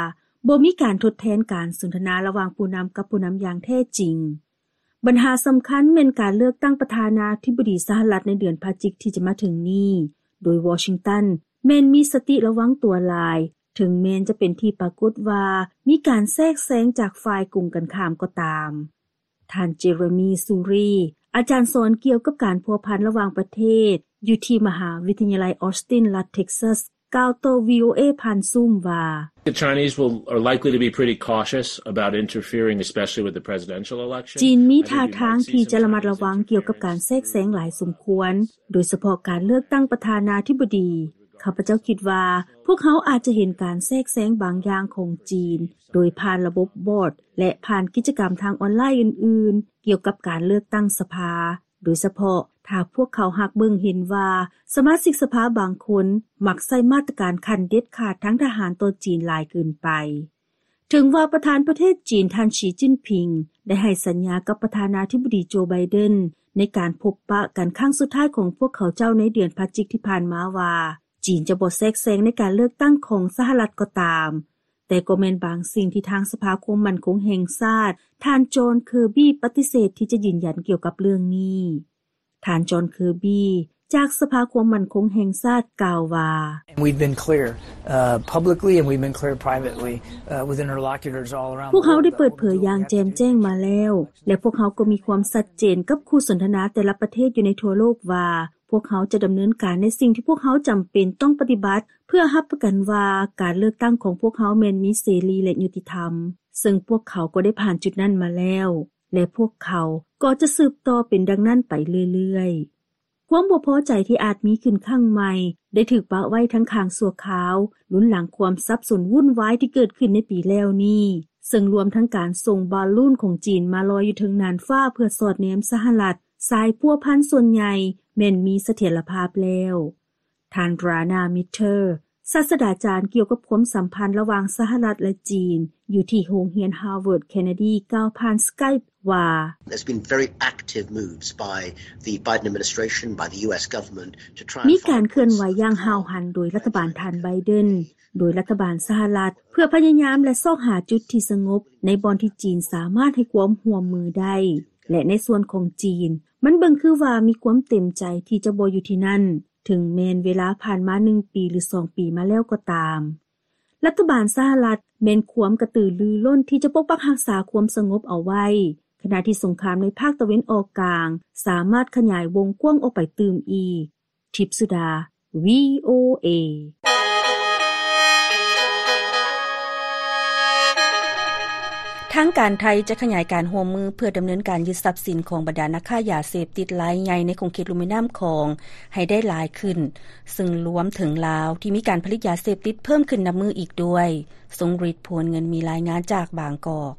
ບໍ່ມີການທົດແທນການສົນທະນາລະຫວ່າງຜູ້ນຳກັບຜູ້ນຳຢ່າງແທ້ຈິງ. ບັນຫາສຳຄັນແມ່ນການເລືອກຕັ້ງປະທານາທິບໍດີສະຫະລັດໃນເດືອນພະຈິກທີ່ຈະມາເຖິງນີ້, ໂດຍວໍຊິງຕັນແມ່ນມີສະຕິລະວັງຕົວຫຼາຍ ເຖິງແມ່ນຈະເປັນທີ່ປາກົດວ່າມີການແຊກແຊງຈາກຝ່າຍກົງກັນຂ້າມກໍຕາມ. ທ່ານ Jeremy Suri ອາຈານສອນກ່ຽວກັບການພົວພັນລະຫວ່າງປະເທດ ຢູ່ທີ່ມະຫາວິທະຍາໄລ Austin ລັດ Texas ກ່າວຕໍ່ VOA ຜ່ານ Zoom ວ່າ The Chinese will, are likely to be pretty cautious about interfering, especially with the presidential election. ຈີນມີທ່າທາງທີ່ຈະລະມັດລະວັງກ່ຽວກັບການແຊກແຊງຫຼາຍສົມຄວນ, ໂດຍສະເພາະການເລືອກຕັ້ງປະທານາທິບໍດີ. ຂ້າພະເຈົ້າຄິດວ່າ ພວກເຮົາອາດຈະເຫັນການແຊກແຊງບາງຢ່າງຂອງຈີນ ໂດຍຜ່ານລະບົບບອດ ແລະ ຜ່ານກິດຈະກຳທາງອອນລາຍອື່ນໆ ກ່ຽວກັບການເລືອກຕັ້ງສະພາ, ໂດຍສະເພາະຖ້າພວກເຂົາຫາກເບິ່ງເຫັນວ່າ ສະມາຊິກສະພາບາງຄົນມັກໃຊ້ມາດຕະການຂັ້ນເດັດຂາດທາງທະຫານຕໍ່ຈີນຫຼາຍເກີນໄປ. ເຖິງວ່າປະທານປະເທດຈີນ ທ່ານ ຊີ ຈິ້ນຜິງ ໄດ້ໃຫ້ສັນຍາກັບປະທານາທິບໍດີ ໂຈ ໄບເດັນ ໃນການພົບປະກັນຄັ້ງສຸດທ້າຍຂອງພວກເຂົາເຈົ້າໃນເດືອນພະຈິກທີ່ຜ່ານມາວ່າ ຈີນຈະບໍ່ແຊກແຊງໃນການເລືອກຕັ້ງຂອງສະຫະລັດກໍຕາມ, ແຕ່ກໍແມ່ນບາງສິ່ງທີ່ທາງສະພາຄວາມໝັ້ນຄົງແຫ່ງຊາດ ທ່ານ ຈອນ ເຄີບີ ປະຕິເສດທີ່ຈະຢືນຢັນກ່ຽວກັບເລື່ອງນີ້. ທ່ານ ຈອນ ເຄີບີ ຈາກສະພາຄວາມໝັ້ນຄົງແຫ່ງຊາດ ກ່າວວ່າ We've been clear, uh, publicly and we've been clear privately, uh, with interlocutors all around the world. ພວກເຮົາໄດ້ເປີດເຜີຍຢ່າງແຈ່ມແຈ້ງມາແລ້ວ ແລະ ພວກເຮົາກໍມີຄວາມຊັດເຈນກັບຄູ່ສົນທະນາແຕ່ລະປະເທດຢູ່ໃນທົ່ວໂລກວ່າ ພວກເຮົາຈະດຳເນີນການໃນສິ່ງທີ່ພວກເຮົາຈຳເປັນຕ້ອງປະຕິບັດ ເພື່ອຮັບປະກັນວ່າການເລືອກຕັ້ງຂອງພວກເຮົາແມ່ນມີເສລີ ແລະ ຍຸຕິທຳ, ເຊິ່ງພວກເຂົາກໍໄດ້ຜ່ານຈຸດນັ້ນມາແລ້ວ ແລະ ພວກເຂົາກໍຈະສືບຕໍ່ເປັນດັ່ງນັ້ນໄປເລື້ອຍໆ. ຄວາມບໍ່ພໍໃຈທີ່ອາດມີຂຶ້ນຄັ້ງໃໝ່ ໄດ້ຖືກປະໄວ້ທັງຂ້າງຊົ່ວຄາວ ລຸ້ນຫຼັງຄວາມສັບສົນວຸ້ນວາຍທີ່ເກີດຂຶ້ນໃນປີແລ້ວນີ້, ເຊິ່ງລວມທັງການສົ່ງບາລູນຂອງຈີນມາລອຍຢູ່ເທິງນ່ານຟ້າເພື່ອສອດແນມສະຫະລັດ, ສາຍພົວພັນສ່ວນໃຫຍ່ແມ່ນມີສະຖຽນລະພາບແລ້ວ. ທ່ານ Rana Mitter ສາດສະດາຈານກ່ຽວກັບຄວາມສຳພັນລະຫວ່າງສະຫະລັດ ແລະ ຈີນ ຢູ່ທີ່ໂຮງຮຽນ Harvard Kennedy ກ່າວຜ່ານ Skype ວ່າ There's been very active moves by the Biden administration, by the U S government, to try and ມີການເຄື່ອນໄຫວຢ່າງຫ້າວຫັນໂດຍລັດຖະບານທ່ານ Biden, ໂດຍລັດຖະບານສະຫະລັດ ເພື່ອພະຍາຍາມ ແລະ ຊອກຫາຈຸດທີ່ສະຫງົບໃນບ່ອນທີ່ຈີນສາມາດໃຫ້ຄວາມຮ່ວມມືໄດ້ ແລະ ໃນສ່ວນຂອງຈີນ ມັນເບິ່ງຄືວ່າມີຄວາມເຕັມໃຈທີ່ຈະບໍ່ຢູ່ທີ່ນັ້ນ, ເຖິງແມ່ນເວລາຜ່ານມາໜຶ່ງປີ ຫຼື ສອງປີມາແລ້ວກໍຕາມ. ລັດຖະບານສະຫະລັດແມ່ນຄວາມກະຕືລືລົ້ນທີ່ຈະປົກປັກຮັກສາຄວາມສະຫງົບເອົາໄວ້, ຂະນະທີ່ສົງຄາມໃນພາກຕາເວັນອອກກາງສາມາດຂະຫຍາຍວົງກວ້າງອອກໄປຕື່ມອີກ. ທິບສຸດາ VOA. ທາງການໄທຈະຂະຫຍາຍການຮ່ວມມືເພື່ອດຳເນີນການຍຶດຊັບສິນຂອງບັນດານັກຄ້າຢາເສບຕິດລາຍໃຫຍ່ໃນຂົງເຂດລຸ່ມແມ່ນ້ຳຂອງໃຫ້ໄດ້ຫຼາຍຂຶ້ນ, ເຊິ່ງລວມເຖິງລາວທີ່ມີການຜະລິດຢາເສບຕິດເພີ່ມຂຶ້ນນັບມື້ອີກດ້ວຍ. ຊົງລິດ ພວນເງິນ ມີລາຍງານຈາກບາງກອກ.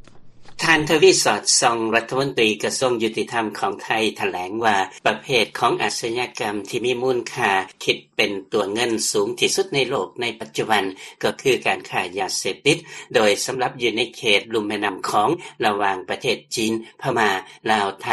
ທ່ານ ທະວີ ສອດສ່ອງ ລັດຖະມົນຕີກະຊວງຍຸຕິທຳຂອງໄທ ຖະແຫຼງວ່າ ປະເພດຂອງອາຊະຍາກຳທີ່ມີມູນຄ່າຄິດເປັນຕົວເງິນສູງທີ່ສຸດໃນໂລກໃນປັດຈຸບັນ ກໍຄືການຄ້າຢາເສບຕິດ, ໂດຍສຳລັບຢູ່ໃນເຂດລຸ່ມແມ່ນ້ຳຂອງ ລະຫວ່າງປະເທດຈີນ, ພະມ້າ, ລາວ, ໄທ,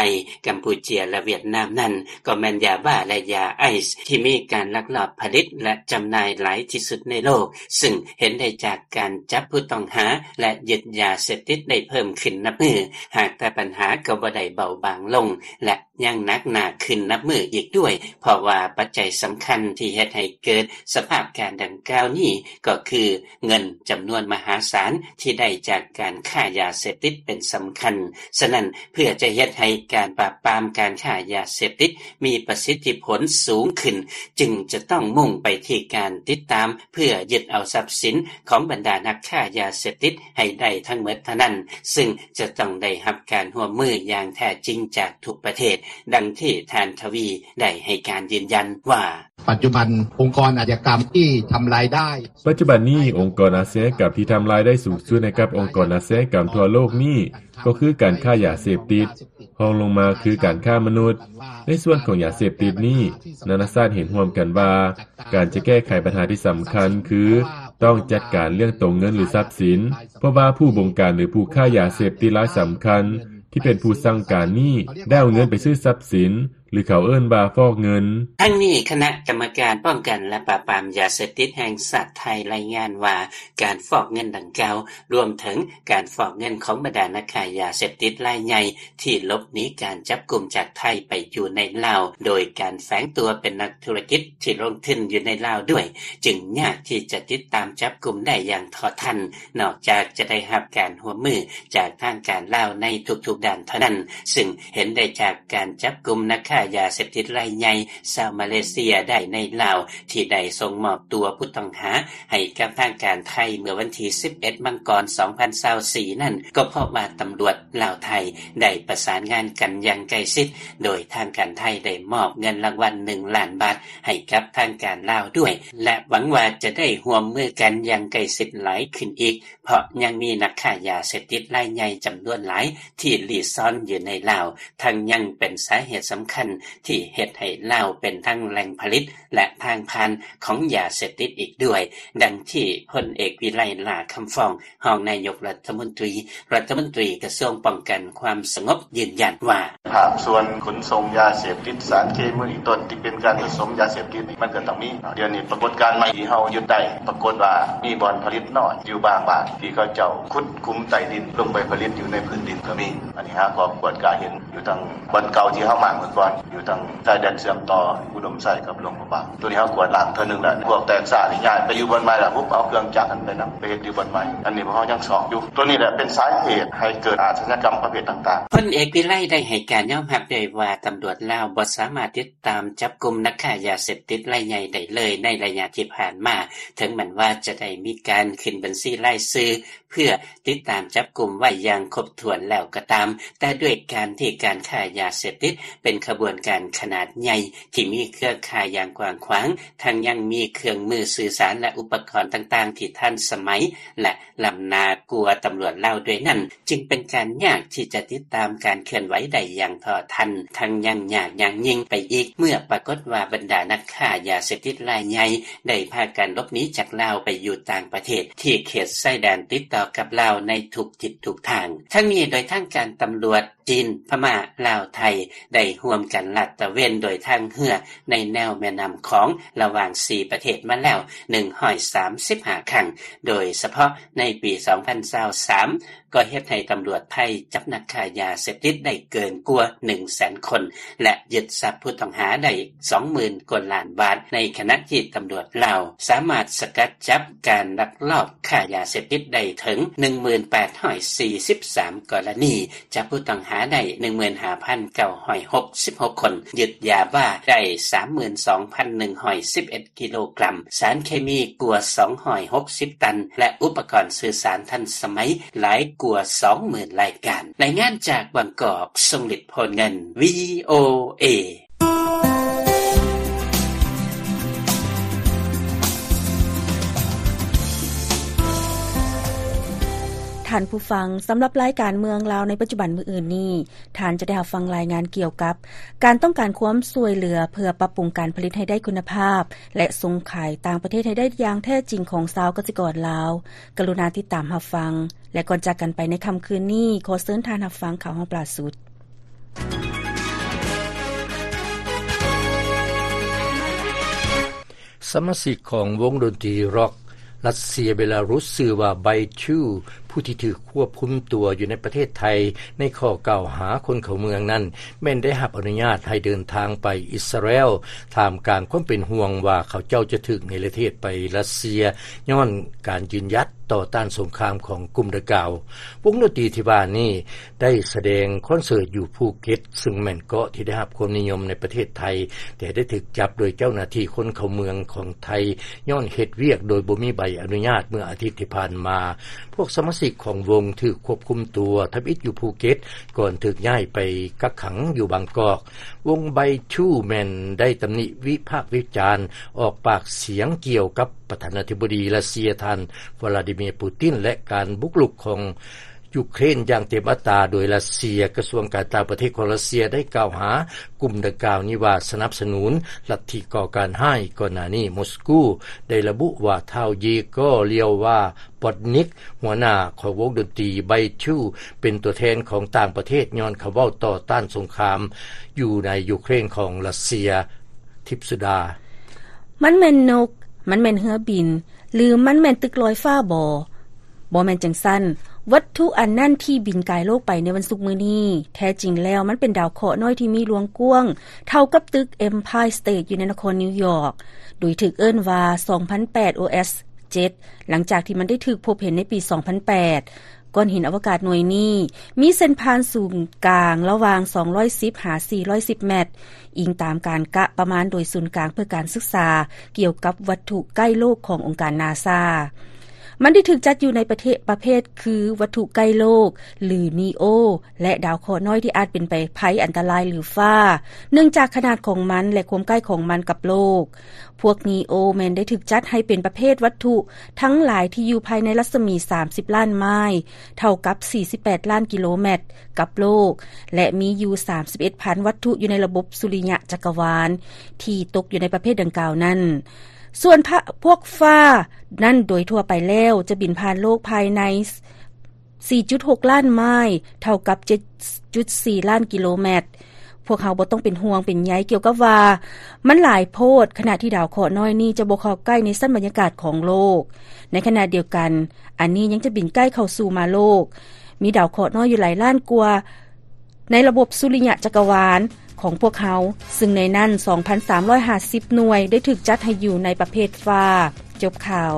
ກຳປູເຈຍ ແລະ ຫວຽດນາມນັ້ນ ກໍແມ່ນຢາບ້າ ແລະ ຢາໄອສ໌ ທີ່ມີການລັກລອບຜະລິດ ແລະ ຈຳໜ່າຍຫຼາຍທີ່ສຸດໃນໂລກ, ຊຶ່ງເຫັນໄດ້ຈາກການຈັບຜູ້ຕ້ອງຫາ ແລະ ຍຶດຢາເສບຕິດໄດ້ເພີ່ມຂຶ້ນນັບມື້, ຫາກແຕ່ບັນຫາກໍບໍ່ໄດ້ເບົາບາງລົງ ແລະ ຍັງໜັກໜ້າຂຶ້ນນັບມື້ອີກດ້ວຍ, ເພາະວ່າປັດໄຈສຳຄັນທີ່ເຮັດໃຫ້ເກີດສະພາບການດັ່ງກ່າວນີ້ ກໍຄືເງິນຈຳນວນມະຫາສານທີ່ໄດ້ຈາກການຄ້າຢາເສບຕິດເປັນສຳຄັນ. ສະນັ້ນ, ເພື່ອຈະເຮັດໃຫ້ການປາບປາມການຄ້າຢາເສບຕິດມີປະສິດທິຜົນສູງຂຶ້ນ, ຈຶ່ງຈະຕ້ອງມຸ່ງໄປທີ່ການຕິດຕາມ ເພື່ອຍຶດເອົາຊັບສິນຂອງບັນດານັກຄ້າຢາເສບຕິດໃຫ້ໄດ້ທັງໝົດເທົ່ານັ້ນ, ຊຶ່ງຈະຕ້ອງໄດ້ຮັບການຮ່ວມມືຢ່າງແທ້ຈິງຈາກທຸກປະເທດ, ດັ່ງທີ່ທ່ານ ທະວີ ໄດ້ໃຫ້ການຢືນຢັນວ່າ: ປັດຈຸບັນ ອົງກອນອາຊະຍາກຳທີ່ທຳລາຍໄດ້ ປັດຈຸບັນນີ້ ອົງກອນອາຊະຍາກຳທີ່ທຳລາຍໄດ້ສູງສຸດໃຫ້ກັບອົງກອນອາຊະຍາກຳທົ່ວໂລກນີ້ ກໍຄືການຄ້າຢາເສບຕິດ, ຮອງລົງມາຄືການຄ້າມະນຸດ. ໃນສ່ວນຂອງຢາເສບຕິດນີ້, ນານາຊາດເຫັນຮ່ວມກັນວ່າ ການຈະແກ້ໄຂບັນຫາທີ່ສຳຄັນຄື ຕ້ອງຈັດການເລື່ອງຕົວເງິນ ຫຼື ຊັບສິນ, ເພາະວ່າຜູ້ບົງການ ຫຼື ຜູ້ຄ້າຢາເສບຕິດລາຍສຳຄັນ ທີ່ເປັນຜູ້ສັ່ງການນີ້ ໄດ້ເອົາເງິນໄປຊື້ຊັບສິນ ຫຼື ເຂົາເອີ້ນວ່າຟອກເງິນ. ທັງນີ້, ຄະນະກຳມະການປ້ອງກັນ ແລະ ປາບປາມຢາເສບຕິດແຫ່ງຊາດໄທລາຍງານວ່າ ການຟອກເງິນດັ່ງກ່າວ ລວມເຖິງການຟອກເງິນຂອງບັນດານັກຄ້າຢາເສບຕິດລາຍໃຫຍ່ ທີ່ຫຼົບໜີການຈັບກຸມຈາກໄທໄປຢູ່ໃນລາວ ໂດຍການແຝງຕົວເປັນນັກທຸລະກິດທີ່ລົງທຶນຢູ່ໃນລາວດ້ວຍ, ຈຶ່ງຍາກທີ່ຈະຕິດຕາມຈັບກຸມໄດ້ຢ່າງເທາະທັນ, ນອກຈາກຈະໄດ້ຮັບການຮ່ວມມືຈາກທາງການລາວໃນທຸກໆດ້ານເທົ່ານັ້ນ, ຊຶ່ງເຫັນໄດ້ຈາກການຈັບກຸມນັກຄ້າຢາເສບຕິດລາຍໃຫຍ່ຊາວມາເລເຊຍໄດ້ໃນລາວ ທີ່ໄດ້ສົ່ງມອບຕົວຜູ້ຕ້ອງຫາ ໃຫ້ກັບທາງການໄທເມື່ອວັນທີສິບເອັດ ມັງກອນ ສອງພັນຊາວສີ່ນັ້ນ ກໍເພາະວ່າຕຳຫຼວດລາວໄທໄດ້ປະສານງານກັນຢ່າງໃກ້ຊິດ, ໂດຍທາງການໄທໄດ້ມອບເງິນລາງວັນໜຶ່ງລ້ານບາດໃຫ້ກັບທາງການລາວດ້ວຍ ແລະ ຫວັງວ່າຈະໄດ້ຮ່ວມມືກັນຢ່າງໃກ້ຊິດຫຼາຍຂຶ້ນອີກ, ເພາະຍັງມີນັກຄ້າຢາເສບຕິດລາຍໃຫຍ່ຈຳນວນຫຼາຍທີ່ລີ້ຊ່ອນຢູ່ໃນລາວ, ທັງຍັງເປັນສາເຫດສຳຄັນທີ່ເຮັດໃຫ້ລາວເປັນທັງແຫຼ່ງຜະລິດ ແລະ ທາງຜ່ານຂອງຢາເສບຕິດອີກດ້ວຍ, ດັ່ງທີ່ພົນເອກ ວິໄລ ຫຼ້າຄຳຟອງ ຮອງນາຍົກລັດຖະມົນຕີ, ລັດຖະມົນຕີກະຊວງປ້ອງກັນຄວາມສະຫງົບ ຢືນຢັນວ່າ: ພາກສ່ວນຂົນສົ່ງຢາເສບຕິດ, ສານເຄມີເປັນຕົ້ນ ທີ່ເປັນການປະສົມຢາເສບຕິດນີ້ ມັນກໍຕ້ອງມີ. ດຽວນີ້ປາກົດການໃໝ່ທີ່ເຮົາຍຶດໄດ້, ປາກົດວ່າມີບ່ອນຜະລິດນ້ອຍຢູ່ບາງບ້ານ ທີ່ເຂົາເຈົ້າຂຸດຂຸມໃຕ້ດິນລົງໄປຜະລິດຢູ່ໃນພື້ນດິນກໍມີ. ອັນນີ້ເຮົາກໍກວດກາເຫັນ ຢູ່ທາງບ່ອນເກົ່າທີ່ເຮົາມາເມື່ອກ່ອນ, ຢູ່ທາງຊາຍແດນເຊື່ອມຕໍ່ອຸດົມໄຊກັບຫຼວງພະບາງ. ໂຕນີ້ເຮົາກວດລ້າງເທື່ອໜຶ່ງແລ້ວ. ພວກແຕກຊ້ານີ້ຍ້າຍໄປຢູ່ບ່ອນໃໝ່ລະ, ຮຸບເອົາເຄື່ອງຈັກຫັ້ນໄປນຳ, ໄປເຮັດຢູ່ບ່ອນໃໝ່. ອັນນີ້ພວກເຮົາຍັງຊອກຢູ່. ໂຕນີ້ແຫຼະເປັນສາເຫດໃຫ້ເກີດອາຊະຍາກຳປະເພດຕ່າງໆ. ພົນເອກ ວິໄລ ໄດ້ໃຫ້ການຍອມຮັບດ້ວຍວ່າ ຕຳຫຼວດລາວບໍ່ສາມາດຕິດຕາມຈັບກຸມນັກຄ້າຢາເສບຕິດລາຍໃຫຍ່ໄດ້ເລີຍໃນໄລຍະທີ່ຜ່ານມາ, ເຖິງແມ່ນວ່າຈະໄດ້ມີການຂຶ້ນບັນຊີລາຍຊື່ ເພື່ອຕິດຕາມຈັບກຸມໄວ້ຢ່າງຄົບຖ້ວນແລ້ວກໍຕາມ, ແຕ່ດ້ວຍການທີ່ການຄ້າຢາເສບຕິດເປັນຂະບວນການຂະໜາດໃຫຍ່ ທີ່ມີເຄືອຂ່າຍຢ່າງກວ້າງຂວາງ, ທັງຍັງມີເຄື່ອງມືສື່ສານ ແລະ ອຸປະກອນຕ່າງໆທີ່ທັນສະໄໝ ແລະ ລ້ຳໜ້າກວ່າຕຳຫຼວດລາວດ້ວຍນັ້ນ, ຈຶ່ງເປັນການຍາກທີ່ຈະຕິດຕາມການເຄື່ອນໄຫວໄດ້ຢ່າງເທົ່າທັນ, ທັງຍັງຍາກຢ່າງຍິ່ງໄປອີກ ເມື່ອປາກົດວ່າບັນດານັກຄ້າຢາເສບຕິດລາຍໃຫຍ່ໄດ້ພາກັນຫຼົບໜີຈາກລາວໄປຢູ່ຕ່າງປະເທດ ທີ່ເຂດຊາຍແດນຕິດຕໍ່ກັບລາວໃນທຸກທິດທຸກທາງ. ທັງນີ້ໂດຍທາງການຕຳຫຼວດ ຈີນ, ພະມ້າ, ລາວ, ໄທ ໄດ້ຮ່ວມກັນລາດຕະເວນໂດຍທາງເຮືອໃນແນວແມ່ນ້ຳຂອງ ລະຫວ່າງສີ່ປະເທດມາແລ້ວໜຶ່ງຮ້ອຍສາມສິບຫ້າຄັ້ງ, ໂດຍສະເພາະໃນປີສອງພັນຊາວສາມ ກໍເຮັດໃຫ້ຕຳຫຼວດໄທຈັບນັກຄ້າຢາເສບຕິດໄດ້ເກີນກວ່າໜຶ່ງແສນຄົນ ແລະ ຍຶດຊັບຜູ້ຕ້ອງຫາໄດ້ສອງໝື່ນກວ່າລ້ານບາດ, ໃນຂະນະທີ່ຕຳຫຼວດລາວສາມາດສະກັດຈັບການລັກລອບຄ້າຢາເສບຕິດໄດ້ເຖິງໜຶ່ງໝື່ນແປດຮ້ອຍສີ່ສິບສາມກໍລະນີ, ຈັບຜູ້ຕ້ອງຫາໄດ້ໜຶ່ງໝື່ນຫ້າພັນເກົ້າຮ້ອຍຫົກສິບຫົກຄົນ, ຍຶດຢາບ້າໄດ້ສາມໝື່ນສອງພັນໜຶ່ງຮ້ອຍສິບເອັດກິໂລກຣາມ, ສານເຄມີກວ່າສອງຮ້ອຍຫົກສິບຕັນ ແລະ ອຸປະກອນສື່ສານທັນສະໄໝຫຼາຍກວ່າສອງໝື່ນລາຍການ. ລາຍງານຈາກບາງກອກ, ຊົງລິດ ໂພນເງິນ ວີໂອເອ. ທ່ານຜູ້ຟັງ, ສຳລັບລາຍການເມືອງລາວໃນປັດຈຸບັນມື້ອື່ນນີ້, ທ່ານຈະໄດ້ຮັບຟັງລາຍງານກ່ຽວກັບການຕ້ອງການຄວາມຊ່ວຍເຫຼືອເພື່ອປັບປຸງການຜະລິດໃຫ້ໄດ້ຄຸນນະພາບ ແລະ ສົ່ງຂາຍຕ່າງປະເທດໃຫ້ໄດ້ຢ່າງແທ້ຈິງຂອງຊາວກະສິກອນລາວ. ກະລຸນາຕິດຕາມຮັບຟັງ ແລະ ກ່ອນຈາກກັນໄປໃນຄ່ຳຄືນນີ້, ຂໍເຊີນທ່ານຮັບຟັງຂ່າວຫ້ອງປາຍສຸດ. ສະມາຊິກຂອງວົງດົນຕີຣັອກຣັດເຊຍເບລາຣຸສ ຊື່ວ່າ Bytyu, ຜູ້ທີ່ຖືກຄວບຄຸມຕົວຢູ່ໃນປະເທດໄທ ໃນຂໍ້ກ່າວຫາຄົນເຂົ້າເມືອງນັ້ນ ແມ່ນໄດ້ຮັບອະນຸຍາດໃຫ້ເດີນທາງໄປອິດສະຣາແອລ, ທ່າມກາງຄວາມເປັນຫ່ວງວ່າເຂົາເຈົ້າຈະຖືກເນລະເທດໄປຣັດເຊຍ ຍ້ອນການຢືນຢັດຕໍ່ຕ້ານສົງຄາມຂອງກຸ່ມດັ່ງກ່າວ. ວົງດົນຕີທີ່ວ່ານີ້ ໄດ້ສະແດງຄອນເສີດຢູ່ພູເກັດ, ເຊິ່ງແມ່ນເກາະທີ່ໄດ້ຮັບຄວາມນິຍົມໃນປະເທດໄທ, ແຕ່ໄດ້ຖືກຈັບໂດຍເຈົ້າໜ້າທີ່ຄົນເຂົ້າເມືອງຂອງໄທ ຍ້ອນເຮັດວຽກໂດຍບໍ່ມີໃບອະນຸຍາດເມື່ອອາທິດທີ່ຜ່ານມາ. ພວກສະມາຊິກຂອງວົງຖືກຄວບຄຸມຕົວທຳອິດຢູ່ພູເກັດ ກ່ອນຖືກຍ້າຍໄປກັກຂັງຢູ່ບາງກອກ. ວົງ Bytyu ແມ່ນໄດ້ຕຳໜິວິພາກວິຈານ, ອອກປາກສຽງກ່ຽວກັບປະທານາທິບໍດີຣັດເຊຍ ທ່ານ ວລາດີເມຍ ປູຕິນ ແລະ ການບຸກລຸກຂອງ ຢູເຄຣນຢ່າງເຕັມອັດຕາໂດຍຣັດເຊຍ. ກະຊວງການຕ່າງປະເທດຂອງຣັດເຊຍໄດ້ກ່າວຫາກຸ່ມດັ່ງກ່າວນີ້ວ່າສະໜັບສະໜູນລັດທິກໍ່ການຮ້າຍ. ກ່ອນໜ້ານີ້ ມົສກູໄດ້ລະບຸວ່າທ້າວ ເຢໂກ ລຽວວາ ປອດນິກ ຫົວໜ້າຂອງວົງດົນຕີ Bytyu ເປັນຕົວແທນຂອງຕ່າງປະເທດ ຍ້ອນຄຳເວົ້າຕໍ່ຕ້ານສົງຄາມຢູ່ໃນຢູເຄຣນຂອງຣັດເຊຍ. ທິບສຸດາ. ມັນແມ່ນນົກ, ມັນແມ່ນເຮືອບິນ ຫຼື ມັນແມ່ນຕຶກລອຍຟ້າບໍ? ບໍ່ແມ່ນຈັ່ງຊັ້ນ. ວັດຖຸອັນນັ້ນທີ່ບິນກາຍໂລກໄປໃນວັນສຸກມື້ນີ້, ແທ້ຈິງແລ້ວມັນເປັນດາວເຄາະນ້ອຍທີ່ມີລວງກວ້າງເທົ່າກັບຕຶກ Empire State ຢູ່ໃນນະຄອນນິວຢອກ, ໂດຍຖືກເອີ້ນວ່າ ສອງພັນແປດ ໂອ ເອັສ ເຈັດ ຫຼັງຈາກທີ່ມັນໄດ້ຖືກພົບເຫັນໃນປີ ສອງພັນແປດ. ກ້ອນຫີນອະວະກາດໜ່ວຍນີ້ມີເສັ້ນຜ່ານສູນກາງລະຫວ່າງ ສອງຮ້ອຍສິບ ຫາ ສີ່ຮ້ອຍສິບແມັດ, ອີງຕາມການກະປະມານໂດຍສູນກາງເພື່ອການສຶກສາກ່ຽວກັບວັດຖຸໃກ້ໂລກຂອງອົງການນາຊາ. ມັນໄດ້ຖືກຈັດຢູ່ໃນປະເທດ ປະເພດຄືວັດຖຸໃກ້ໂລກ ຫຼື NEO ແລະ ດາວເຄາະນ້ອຍທີ່ອາດເປັນໄພອັນຕະລາຍ ຫຼື ຟ້າ, ເນື່ອງຈາກຂະໜາດຂອງມັນ ແລະ ຄວາມໃກ້ຂອງມັນກັບໂລກ. ພວກ NEO ແມ່ນໄດ້ຖືກຈັດໃຫ້ເປັນປະເພດວັດຖຸທັງຫຼາຍທີ່ຢູ່ພາຍໃນລັດສະໝີ ສາມສິບລ້ານໄມລ໌ ເທົ່າກັບ ສີ່ສິບແປດລ້ານກິໂລແມັດ ກັບໂລກ ແລະ ມີຢູ່ ສາມສິບເອັດພັນວັດຖຸຢູ່ໃນລະບົບສຸລິຍະຈັກກະວານ ທີ່ຕົກຢູ່ໃນປະເພດດັ່ງກ່າວນັ້ນ. ສ່ວນພະ ພວກຟ້ານັ້ນໂດຍທົ່ວໄປແລ້ວຈະບິນຜ່ານໂລກພາຍໃນ ສີ່ຈຸດຫົກລ້ານໄມລ໌ ເທົ່າກັບ ເຈັດຈຸດສີ່ລ້ານກິໂລແມັດ. ພວກເຮົາບໍ່ຕ້ອງເປັນຫ່ວງເປັນໃຍກ່ຽວກັບວ່າມັນຫຼາຍໂພດ, ຂະນະທີ່ດາວເຄາະນ້ອຍນີ້ຈະບໍ່ເຂົ້າໃກ້ໃນຊັ້ນບັນຍາກາດຂອງໂລກ. ໃນຂະນະດຽວກັນ, ອັນນີ້ຍັງຈະບິນໃກ້ເຂົ້າສູ່ມາໂລກ. ມີດາວເຄາະນ້ອຍຢູ່ຫຼາຍລ້ານກວ່າໃນລະບົບສຸລິຍະຈັກກະວານຂອງພວກເຮົາ, ຊຶ່ງໃນນັ້ນ ສອງພັນສາມຮ້ອຍຫ້າສິບໜ່ວຍໄດ້ຖືກຈັດໃຫ້ຢູ່ໃນປະເພດຟ້າ. ຈົບຂ່າວ.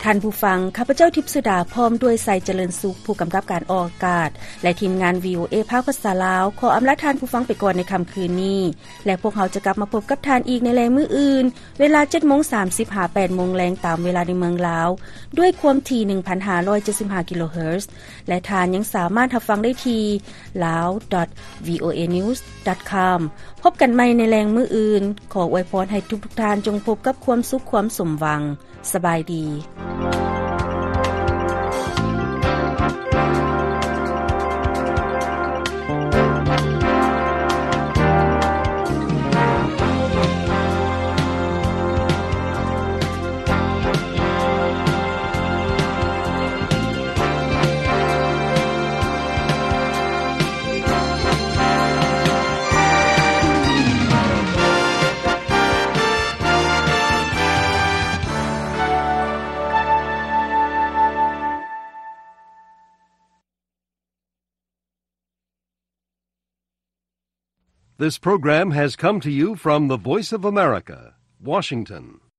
ທ່ານຜູ້ຟັງ, ຂ້າພະເຈົ້າ ທິບສຸດາ ພ້ອມດ້ວຍ ໄຊຈະເລີນສຸກ ຜູ້ກຳກັບການອອກອາກາດ ແລະ ທີມງານ ວີໂອເອ ພາກພາສາລາວ ຂໍອຳລາທ່ານຜູ້ຟັງໄປກ່ອນໃນຄ່ຳຄືນນີ້ ແລະ ພວກເຮົາຈະກັບມາພົບກັບທ່ານອີກໃນແລງມື້ອື່ນ ເວລາເຈັດໂມງສາມສິບ ຫາ ແປດໂມງແລງ ຕາມເວລາໃນເມືອງລາວ ດ້ວຍຄວາມຖີ່ ໜຶ່ງພັນຫ້າຮ້ອຍເຈັດສິບຫ້າ ກິໂລເຮີດ ແລະ ທ່ານຍັງສາມາດຮັບຟັງໄດ້ທີ່ lao dot voanews dot com. ພົບກັນໃໝ່ໃນແລງມື້ອື່ນ. ຂໍອວຍພອນໃຫ້ທຸກໆທ່ານຈົ່ງພົບກັບຄວາມສຸກຄວາມສົມຫວັງ. ສະບາຍດີ. This program has come to you from the Voice of America, Washington.